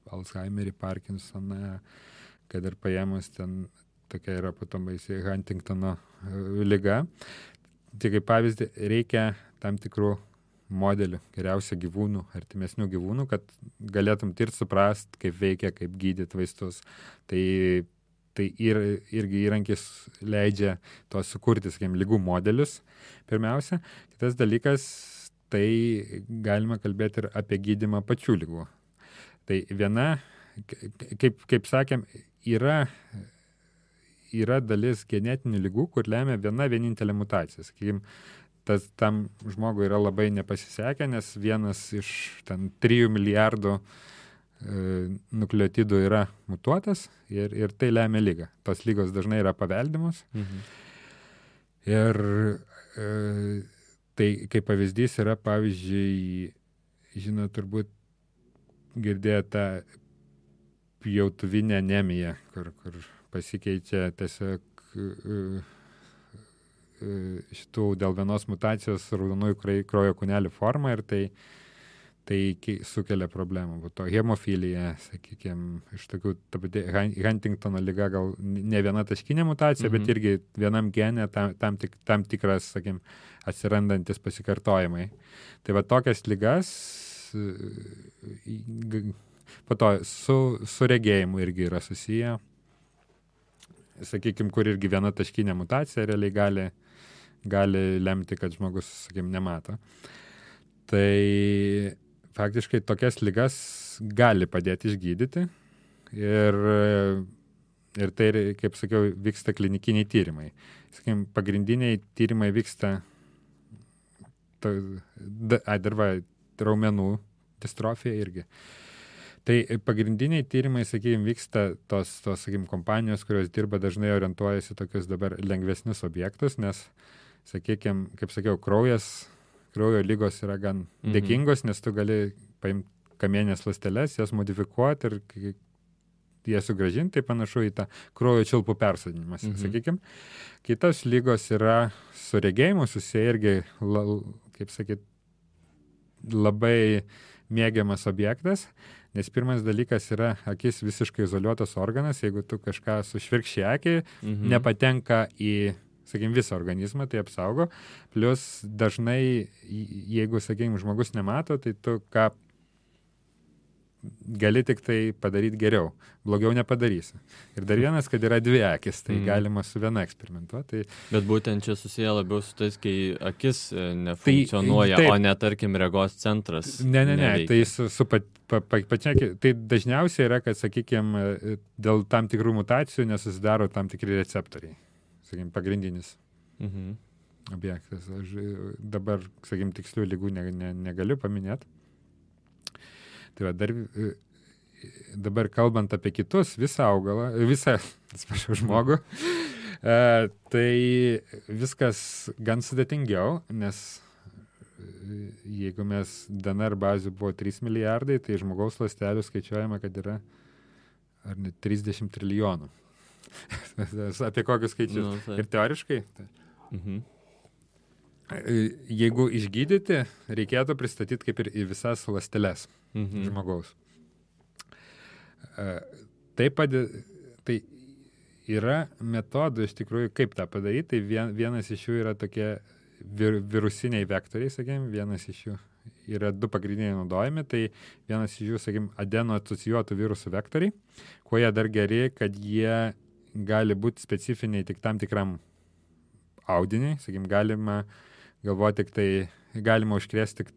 Alzheimerį, Parkinsoną, kad ir paėmus ten tokia yra potom baisi Huntingtono liga. Tai kaip pavyzdį reikia tam tikrų modelių, geriausia gyvūnų, artimesnių gyvūnų, kad galėtum tirti, suprast, kaip veikia, kaip gydyti vaistus. Tai irgi įrankis leidžia to sukurti, sakykim, ligų modelius pirmiausia. Kitas dalykas, tai galima kalbėti ir apie gydymą pačių ligų. Tai viena, kaip sakėm, yra dalis genetinių ligų, kur lemia vienintelė mutacija. Sakykim, tam žmogui yra labai nepasisekę, nes vienas iš 3 milijardų nukleotidų yra mutuotas ir tai lemia ligą. Tos lygos dažnai yra paveldimos. Ir tai kaip pavyzdys yra, pavyzdžiui, žinot, turbūt girdėję tą pjautuvinę anemiją, kur pasikeičia tiesiog šitų dėl vienos mutacijos raudonųjų kraujo kūnelių forma ir tai sukelia problemų. To hemofilija, sakykime, iš tokių, Huntingtono liga gal ne viena taškinė mutacija, bet irgi vienam gene tam tikras, sakykime, atsirandantis pasikartojimai. Tai va tokias ligas po to su regėjimu irgi yra susiję. Sakykime, kur irgi viena taškinė mutacija realiai gali lemti, kad žmogus, sakykime, nemato. Tai faktiškai tokias ligas gali padėti išgydyti ir tai, kaip sakiau, vyksta klinikiniai tyrimai. Sakykime, pagrindiniai tyrimai vyksta raumenų distrofija irgi. Tai pagrindiniai tyrimai, sakykime, vyksta tos sakykime, kompanijos, kurios dirba, dažnai orientuojasi tokius dabar lengvesnius objektus, nes, sakykime, kaip sakiau, kraujo lygos yra gan dėkingos, nes tu gali paimti kamienės ląsteles, jas modifikuoti ir jas sugrąžinti, tai panašu į tą kraujo čiulpų persodinimas, sakykime. Kitos lygos yra su regėjimu susiję irgi, kaip sakyt, labai mėgiamas objektas, nes pirmas dalykas yra akis visiškai izoliuotas organas, jeigu tu kažką sušvirkščiai akį, nepatenka į, sakykime, visą organizmą, tai apsaugo. Plius dažnai, jeigu, sakykime, žmogus nemato, tai tu ką gali tik tai padaryti geriau, blogiau nepadarysi. Ir dar vienas, kad yra dvi akis, tai galima su viena eksperimentuoti. Bet būtent čia susiję labiau su tais, kai akis nefunkcionuoja, o ne, tarkim, regos centras. Ne, tai su pačia, tai dažniausiai yra, kad, sakykime, dėl tam tikrų mutacijų nesusidaro tam tikri receptoriai, sakykime, pagrindinis objektas. Aš dabar, sakykime, tikslių lygų negaliu paminėti. Tai va, dabar kalbant apie kitus, visą augalą, žmogų, tai viskas gan sudėtingiau, nes jeigu mes DNR bazių buvo 3 milijardai, tai žmogaus ląstelių skaičiuojama, kad yra ar ne 30 trilijonų. Apie kokius skaičius. Ir teoriškai. Jeigu išgydyti, reikėtų pristatyti kaip ir į visas ląsteles žmogaus. Tai yra metodų iš tikrųjų, kaip tą padaryti. Tai vienas iš jų yra tokie virusiniai vektoriai, sakykime, vienas iš jų yra 2 pagrindiniai naudojami, tai vienas iš jų, sakykime, adeno-asocijuotų virusų vektoriai, kuo jie dar geri, kad jie gali būti specifiniai tik tam tikram audiniui, sakykime, galima galvoti galima užkrėsti tik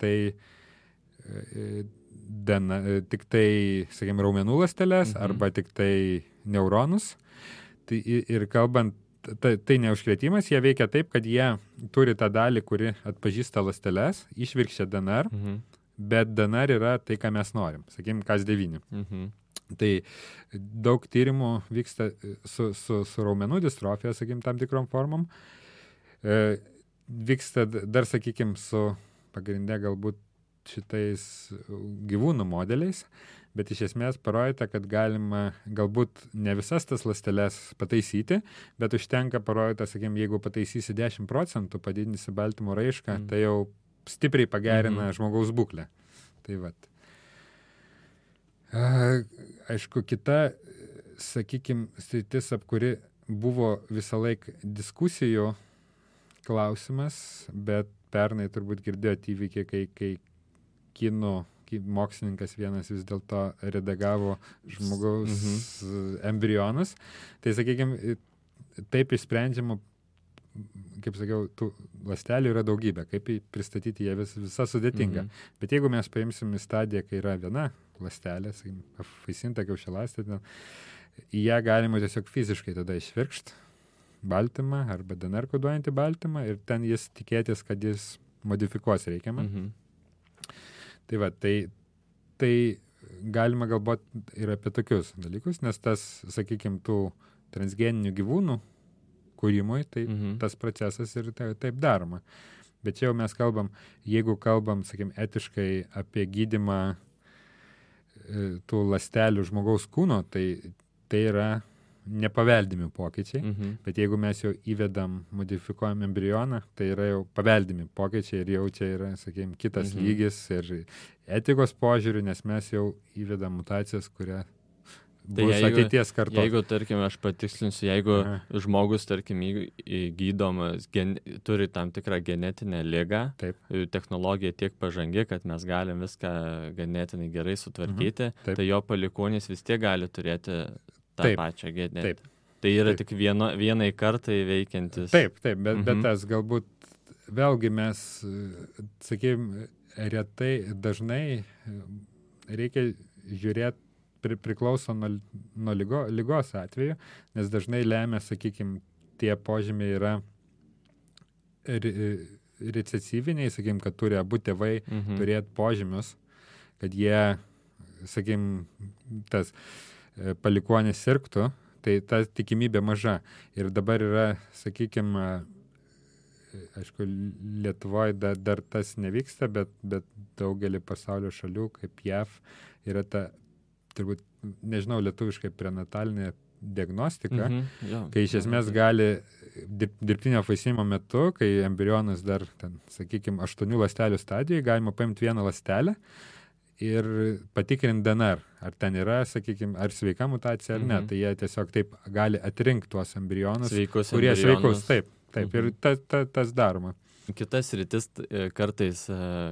tai, sakykime, raumenų ląsteles arba tik tai neuronus. Tai, ir kalbant, tai neužkrėtimas, jie veikia taip, kad jie turi tą dalį, kuri atpažįsta ląsteles, išvirkščia DNR, bet DNR yra tai, ką mes norim, sakykime, Cas9. Tai daug tyrimų vyksta su raumenų distrofija, sakykime, tam tikrom formom. Vyksta dar, sakykime, su pagrinde galbūt šitais gyvūnų modeliais, bet iš esmės parodyta, kad galima galbūt ne visas tas ląsteles pataisyti, bet užtenka parodyta, sakykime, jeigu pataisysi 10%, padidinsi baltymo raišką, tai jau stipriai pagerina žmogaus būklę. Tai vat. Aišku, kita, sakykime, sritis, ap kuri buvo visą laiką diskusijų klausimas, bet pernai turbūt girdėjote įvykį, kai kinų mokslininkas vienas vis dėlto redagavo žmogaus embrionus. Tai, sakykime, taip išsprendžiama, kaip sakiau, tų ląstelių yra daugybė, kaip pristatyti jie visa sudėtinga. Bet jeigu mes paimsim į stadiją, kai yra viena ląstelė, sakykime, apvaisinta kiaušialąstė, į ją galima tiesiog fiziškai tada išvirkšti baltymą arba DNR koduojantį baltymą ir ten jis tikėtis, kad jis modifikuos reikiamą. Tai va, tai galima galvoti ir apie tokius dalykus, nes tas, sakykime, tų transgeninių gyvūnų kūrimui, tai tas procesas ir taip daroma. Bet čia jau mes kalbam, jeigu kalbam, sakykime, etiškai apie gydymą tų ląstelių žmogaus kūno, tai yra nepaveldimi pokyčiai, bet jeigu mes jau įvedam, modifikuojam embrioną, tai yra jau paveldimi pokyčiai ir jau čia yra, sakykime, kitas lygis ir etikos požiūrių, nes mes jau įvedam mutacijas, kurie bus ateities kartos. Jeigu, tarkim, aš patikslinsiu, jeigu žmogus, tarkim, gydomas, turi tam tikrą genetinę ligą, technologija tiek pažangi, kad mes galim viską ganėtinai gerai sutvarkyti, tai jo palikuonis vis tiek gali turėti tą pačią genetiką. Tai yra tik vienai kartai veikiantis. Taip, bet tas galbūt vėlgi mes, sakykime, retai, dažnai reikia žiūrėti, priklauso nuo lygos atveju, nes dažnai lemia, sakykime, tie požymiai yra recesyviniai, sakykime, kad turi abu tėvai turėti požymius, kad jie, sakykime, tas palikuonis sirgtų, tai ta tikimybė maža. Ir dabar yra, sakykime, aišku, Lietuvoje dar tas nevyksta, bet daugelį pasaulio šalių, kaip JAV, yra ta, turbūt, nežinau, lietuviškai prenatalinė diagnostika, kai iš esmės gali dirbtinio apvaisinimo metu, kai embrionas dar, ten, sakykime, 8 ląstelių stadijoje, galima paimti vieną ląstelę ir patikrinti DNR, ar ten yra, sakykime, ar sveika mutacija, ar ne. Tai jie tiesiog taip gali atrinkti tuos embrionus, kurie sveikus. Taip. Ir tas daroma. Kitas rytis kartais,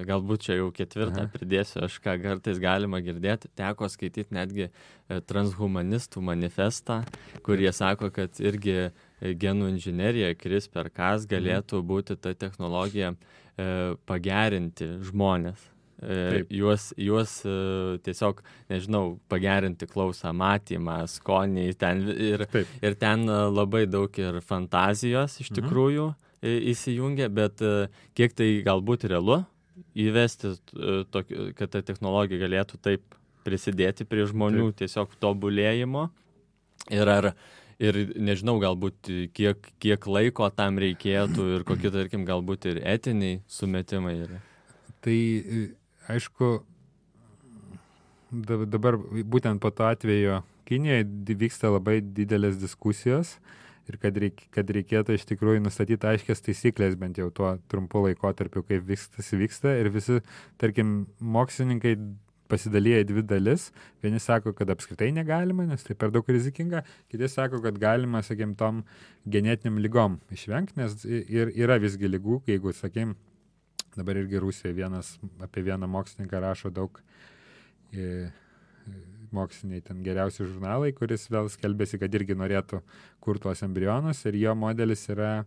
galbūt čia jau ketvirtą pridėsiu, aš ką kartais galima girdėti, teko skaityti netgi transhumanistų manifestą, kurie sako, kad irgi genų inžinerija, CRISPR-Cas galėtų būti ta technologija pagerinti žmonės. Juos tiesiog, nežinau, pagerinti klausą, matymą, skonį ir ten labai daug ir fantazijos iš tikrųjų įsijungia, bet kiek tai galbūt realu įvesti, kad ta technologija galėtų taip prisidėti prie žmonių tiesiog tobulėjimo ir nežinau, galbūt kiek laiko tam reikėtų ir kokie, tarkim, galbūt ir etiniai sumetimai yra. Tai aišku, dabar būtent po to atvejo Kinijoje vyksta labai didelės diskusijos ir kad reikėtų iš tikrųjų nustatyti aiškias taisyklės bent jau tuo trumpu laikotarpiu, kaip vyksta ir visi, tarkim, mokslininkai pasidalyja į dvi dalis. Vieni sako, kad apskritai negalima, nes tai per daug rizikinga, kiti sako, kad galima, sakykim, tom genetiniam lygom išvengti, nes ir yra visgi lygų, jeigu, sakykim, dabar irgi Rusijoje apie vieną mokslininką rašo daug moksliniai ten geriausi žurnalai, kuris vėl skelbėsi, kad irgi norėtų kurti tuos embrionus ir jo modelis yra,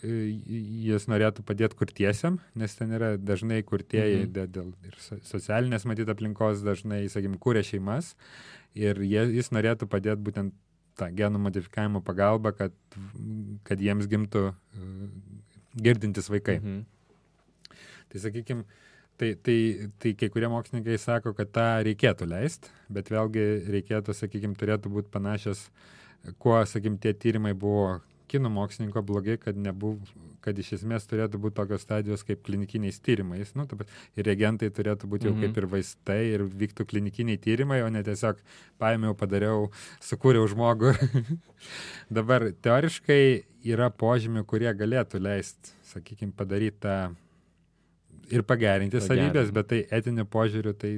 jis norėtų padėti kurtiesiam, nes ten yra dažnai kurtieji dėl ir socialinės matyt aplinkos dažnai, sakykim, kūrė šeimas ir jis norėtų padėti būtent tą genų modifikavimo pagalbą, kad jiems gimtų girdintis vaikai. Tai sakykim, tai kai kurie mokslininkai sako, kad tą reikėtų leisti, bet vėlgi reikėtų, sakykim, turėtų būti panašios, kuo, sakykim, tie tyrimai buvo kinų mokslininko blogi, kad iš esmės turėtų būti tokios stadijos kaip klinikiniais tyrimais. Ir reagentai turėtų būti jau kaip ir vaistai ir vyktų klinikiniai tyrimai, o ne tiesiog paėmiau, padariau, sukūriau žmogų. Dabar teoriškai yra požymių, kurie galėtų leisti, sakykim, padaryti tą ir pagerinti savybės, bet tai etiniu požiūriu tai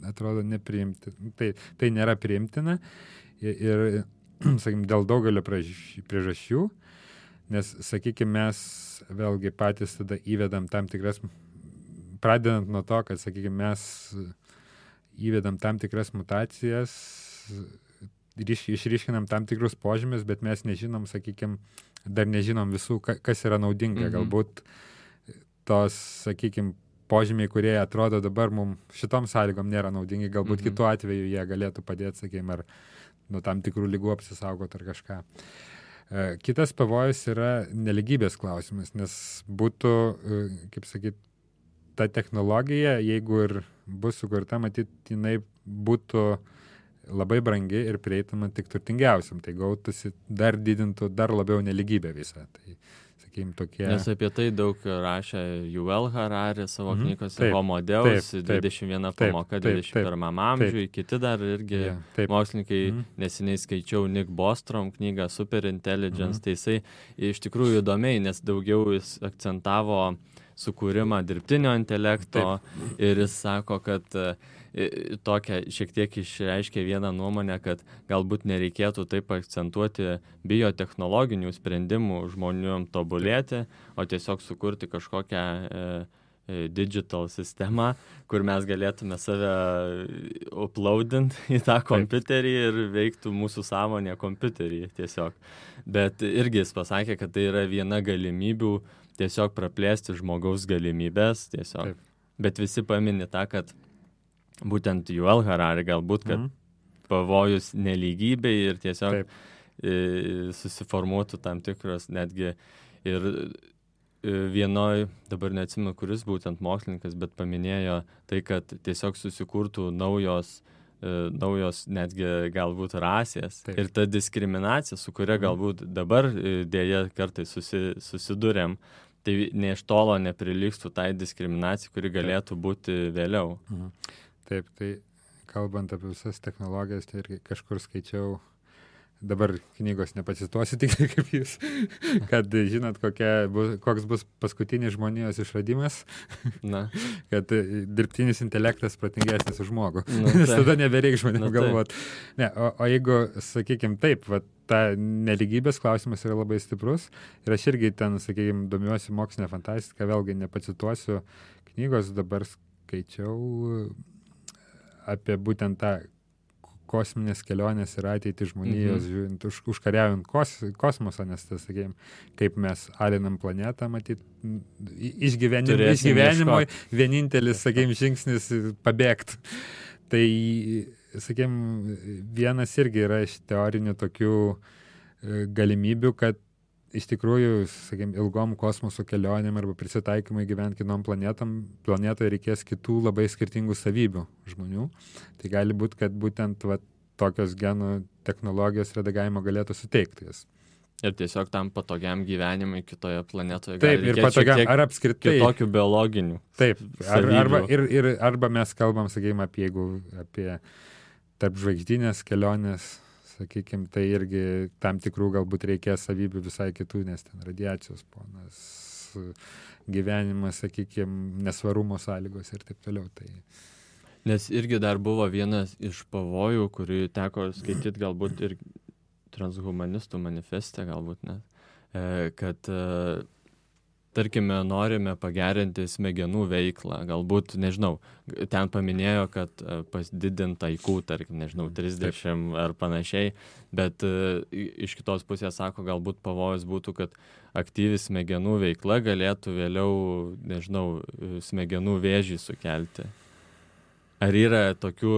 atrodo nepriimtina. Tai nėra priimtina ir sakykim, dėl daugelio priežasčių, nes, sakykim, mes vėlgi patys tada įvedam tam tikras, pradedant nuo to, kad, sakykim, mes įvedam tam tikras mutacijas, išryškinam tam tikrus požymius, bet mes nežinom, sakykim, dar nežinom visų, kas yra naudinga. Galbūt tos, sakykim, požymiai, kurie atrodo dabar mums šitom sąlygom nėra naudingi, galbūt kitu atveju jie galėtų padėti, sakykim, ar nuo tam tikrų lygų apsisaugoti ar kažką. Kitas pavojus yra neligybės klausimas, nes būtų, kaip sakyt, ta technologija, jeigu ir bus sukurta, matyt, jinai būtų labai brangi ir prieitama tik turtingiausiam, tai gautųsi didintų dar labiau neligybę visą. Tai, sakykim, tokie... Nes apie tai daug rašė Yuval Harari savo knygose Homo Deus, 21 pamoka 21 amžiui, kiti dar irgi mokslininkai, neseniai skaičiau Nick Bostrom knygą Super Intelligence, tai jisai iš tikrųjų įdomiai, nes daugiau jis akcentavo sukūrimą dirbtinio intelekto ir jis sako, kad tokia šiek tiek išreiškia vieną nuomonę, kad galbūt nereikėtų taip akcentuoti biotechnologinių sprendimų žmonėm tobulėti, o tiesiog sukurti kažkokią digital sistemą, kur mes galėtume save uploadint į tą kompiuterį ir veiktų mūsų sąmonė kompiuterį tiesiog. Bet irgi jis pasakė, kad tai yra viena galimybių tiesiog praplėsti žmogaus galimybės tiesiog. Bet visi pamini tą, kad būtent Yuval Harari galbūt, kad pavojus nelygybei ir tiesiog susiformuotų tam tikros netgi ir vienoj, dabar neatsimenu, kuris būtent mokslininkas, bet paminėjo tai, kad tiesiog susikurtų naujos netgi galbūt rasės. Ir ta diskriminacija, su kuria galbūt dabar dėja kartais susidurėm, tai ne iš tolo neprilygstų tai diskriminacijai, kuri galėtų būti vėliau. Taip, tai kalbant apie visas technologijas, tai irgi kažkur skaičiau, dabar knygos nepacituosiu tik kaip jūs, kad žinot, koks bus paskutinis žmonijos išradimas, kad dirbtinis intelektas protingesnis už žmogų, nes tada nebereik žmonėm galvoti. Ne, o jeigu, sakykime, taip, ta neligybės klausimas yra labai stiprus ir aš irgi ten, sakykime, domiuosi mokslinę fantastiką, vėlgi nepacituosiu knygos, dabar skaičiau apie būtent tą kosminės kelionės ir ateitį žmonijos, žiūrint, užkariaujant kosmosą, nes tas, sakykime, kaip mes alinam planetą, matyt, išgyvenimui vienintelis, sakykime, žingsnis pabėgti. Tai, sakykime, vienas irgi yra iš teorinių tokių galimybių, kad iš tikrųjų, sakykime, ilgom kosmoso kelionėm arba prisitaikymai gyventi kitom planetoje reikės kitų labai skirtingų savybių žmonių. Tai gali būti, kad būtent tokios genų technologijos redagavimo galėtų suteikti jas. Ir tiesiog tam patogiam gyvenimui kitoje planetoje gali reikėti patogiam, ar apskritai kitokių biologinių. Taip, arba mes kalbam, sakykime, apie tarp žvaigždinės kelionės, sakykime, tai irgi tam tikrų galbūt reikės savybių visai kitų, nes ten radiacijos ponas, gyvenimas, sakykime, nesvarumo sąlygos ir taip toliau. Tai... Nes irgi dar buvo vienas iš pavojų, kurį teko skaityti galbūt ir transhumanistų manifeste, galbūt net, kad tarkime, norime pagerinti smegenų veiklą, galbūt, nežinau, ten paminėjo, kad pasididint IQ, tarkim, nežinau, 30 ar panašiai, bet iš kitos pusės sako, galbūt pavojus būtų, kad aktyvi smegenų veikla galėtų vėliau, nežinau, smegenų vėžį sukelti. Ar yra tokių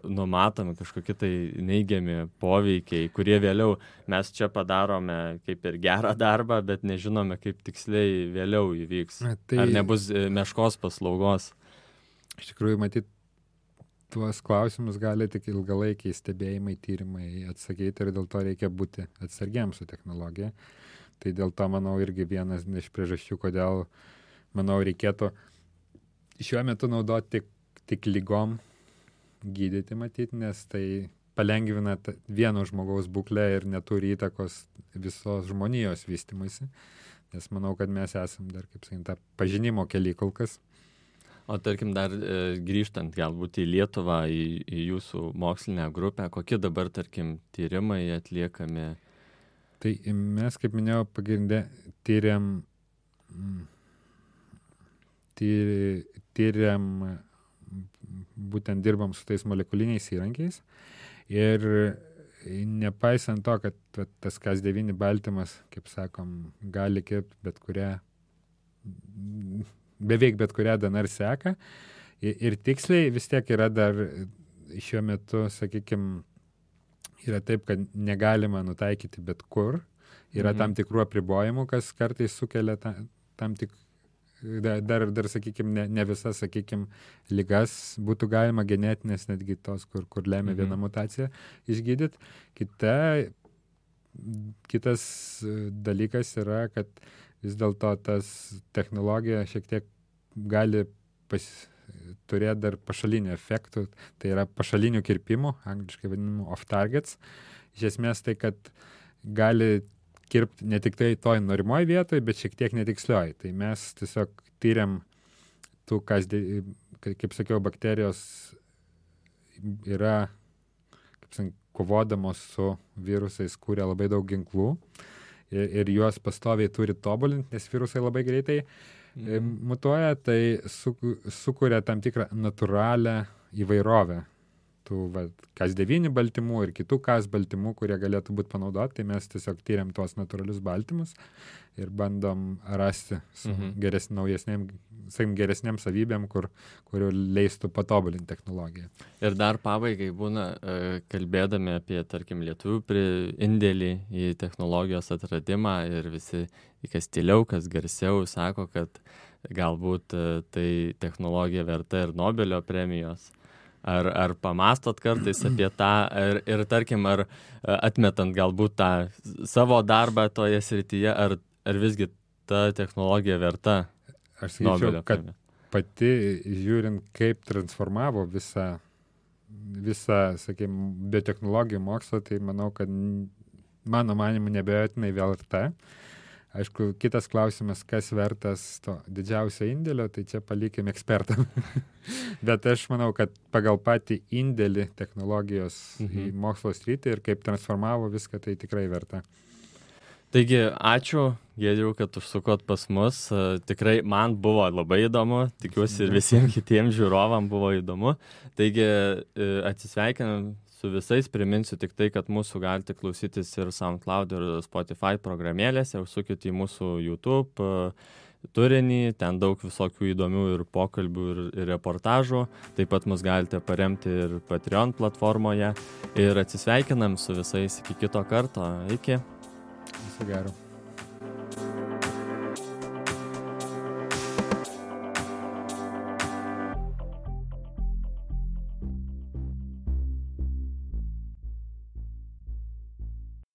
numatomi kažkokie tai neigiami poveikiai, kurie vėliau mes čia padarome kaip ir gerą darbą, bet nežinome, kaip tiksliai vėliau įvyks? Ar nebus meškos paslaugos? Iš tikrųjų, matyt, tuos klausimus gali tik ilgalaikiai stebėjimai, tyrimai atsakyti ir dėl to reikia būti atsargiams su technologija. Tai dėl to, manau, irgi vienas iš priežasčių, kodėl, manau, reikėtų šiuo metu naudoti tik lygom gydyti, matyti, nes tai palengvina vieno žmogaus būklę ir neturi įtakos visos žmonijos vystymuisi. Nes manau, kad mes esam dar, kaip sakyti, pažinimo kely kol kas. O tarkim, dar grįžtant galbūt į Lietuvą, į jūsų mokslinę grupę, kokie dabar, tarkim, tyrimai atliekami? Tai mes, kaip minėjau, pagrindė tyriam būtent dirbam su tais molekuliniais įrankiais ir nepaisant to, kad tas Cas9 baltymas, kaip sakom, gali kirpti beveik bet kurią DNR seką ir tiksliai vis tiek yra dar šiuo metu, sakykime, yra taip, kad negalima nutaikyti bet kur, yra tam tikrų apribojimų, kas kartais sukelia tam tik dar sakykime, ne visas, sakykime, ligas būtų galima genetinės, netgi tos, kur lemia viena mutacija išgydyti. Kitas dalykas yra, kad vis dėlto tas technologija šiek tiek gali turėti dar pašalinių efektų, tai yra pašalinių kirpimų, angliškai vadinamų off-targets. Iš esmės tai, kad gali kirpti ne tik tai toj norimoj vietoj, bet šiek tiek netikslioj. Tai mes tiesiog tyriam tų, kaip sakiau, bakterijos yra, kaip sakiau, kovodamos su virusais, kūrė labai daug ginklų ir juos pastoviai turi tobulinti, nes virusai labai greitai mutuoja, tai sukuria tam tikrą natūralią įvairovę tų Cas9 baltymų ir kitų Cas baltymų, kurie galėtų būti panaudoti, tai mes tiesiog tyriam tuos natūralius baltymus ir bandom rasti su geresnėm savybėm, kurių leistų patobulinti technologiją. Ir dar pabaigai būna, kalbėdami apie, tarkim, lietuvių indėlį į technologijos atradimą ir visi, kas tyliau, kas garsiau, sako, kad galbūt tai technologija verta ir Nobelio premijos. Ar pamastot kartais apie tą ir tarkim, ar atmetant galbūt tą savo darbą toje srityje, ar visgi ta technologija verta Nobelio premijos? Aš sakyčiau, kad pati žiūrint, kaip transformavo visą sakykime, biotechnologijų mokslą, tai manau, kad mano manimu, nebejotinai verta. Aišku, kitas klausimas, kas vertas to didžiausio indėlio, tai čia palikim ekspertam. Bet aš manau, kad pagal patį indėlį technologijos į mokslo sritį ir kaip transformavo viską, tai tikrai verta. Taigi, ačiū, Giedriau, kad užsukot pas mus. Tikrai man buvo labai įdomu, tikiuosi ir visiems kitiems žiūrovam buvo įdomu. Taigi, atsisveikinam su visais, priminsiu tik tai, kad mūsų galite klausytis ir SoundCloud ir Spotify programėlėse, užsukit į mūsų YouTube turinį, ten daug visokių įdomių ir pokalbių ir reportažų, taip pat mus galite paremti ir Patreon platformoje ir atsisveikinam su visais iki kito karto, iki. Viso gero.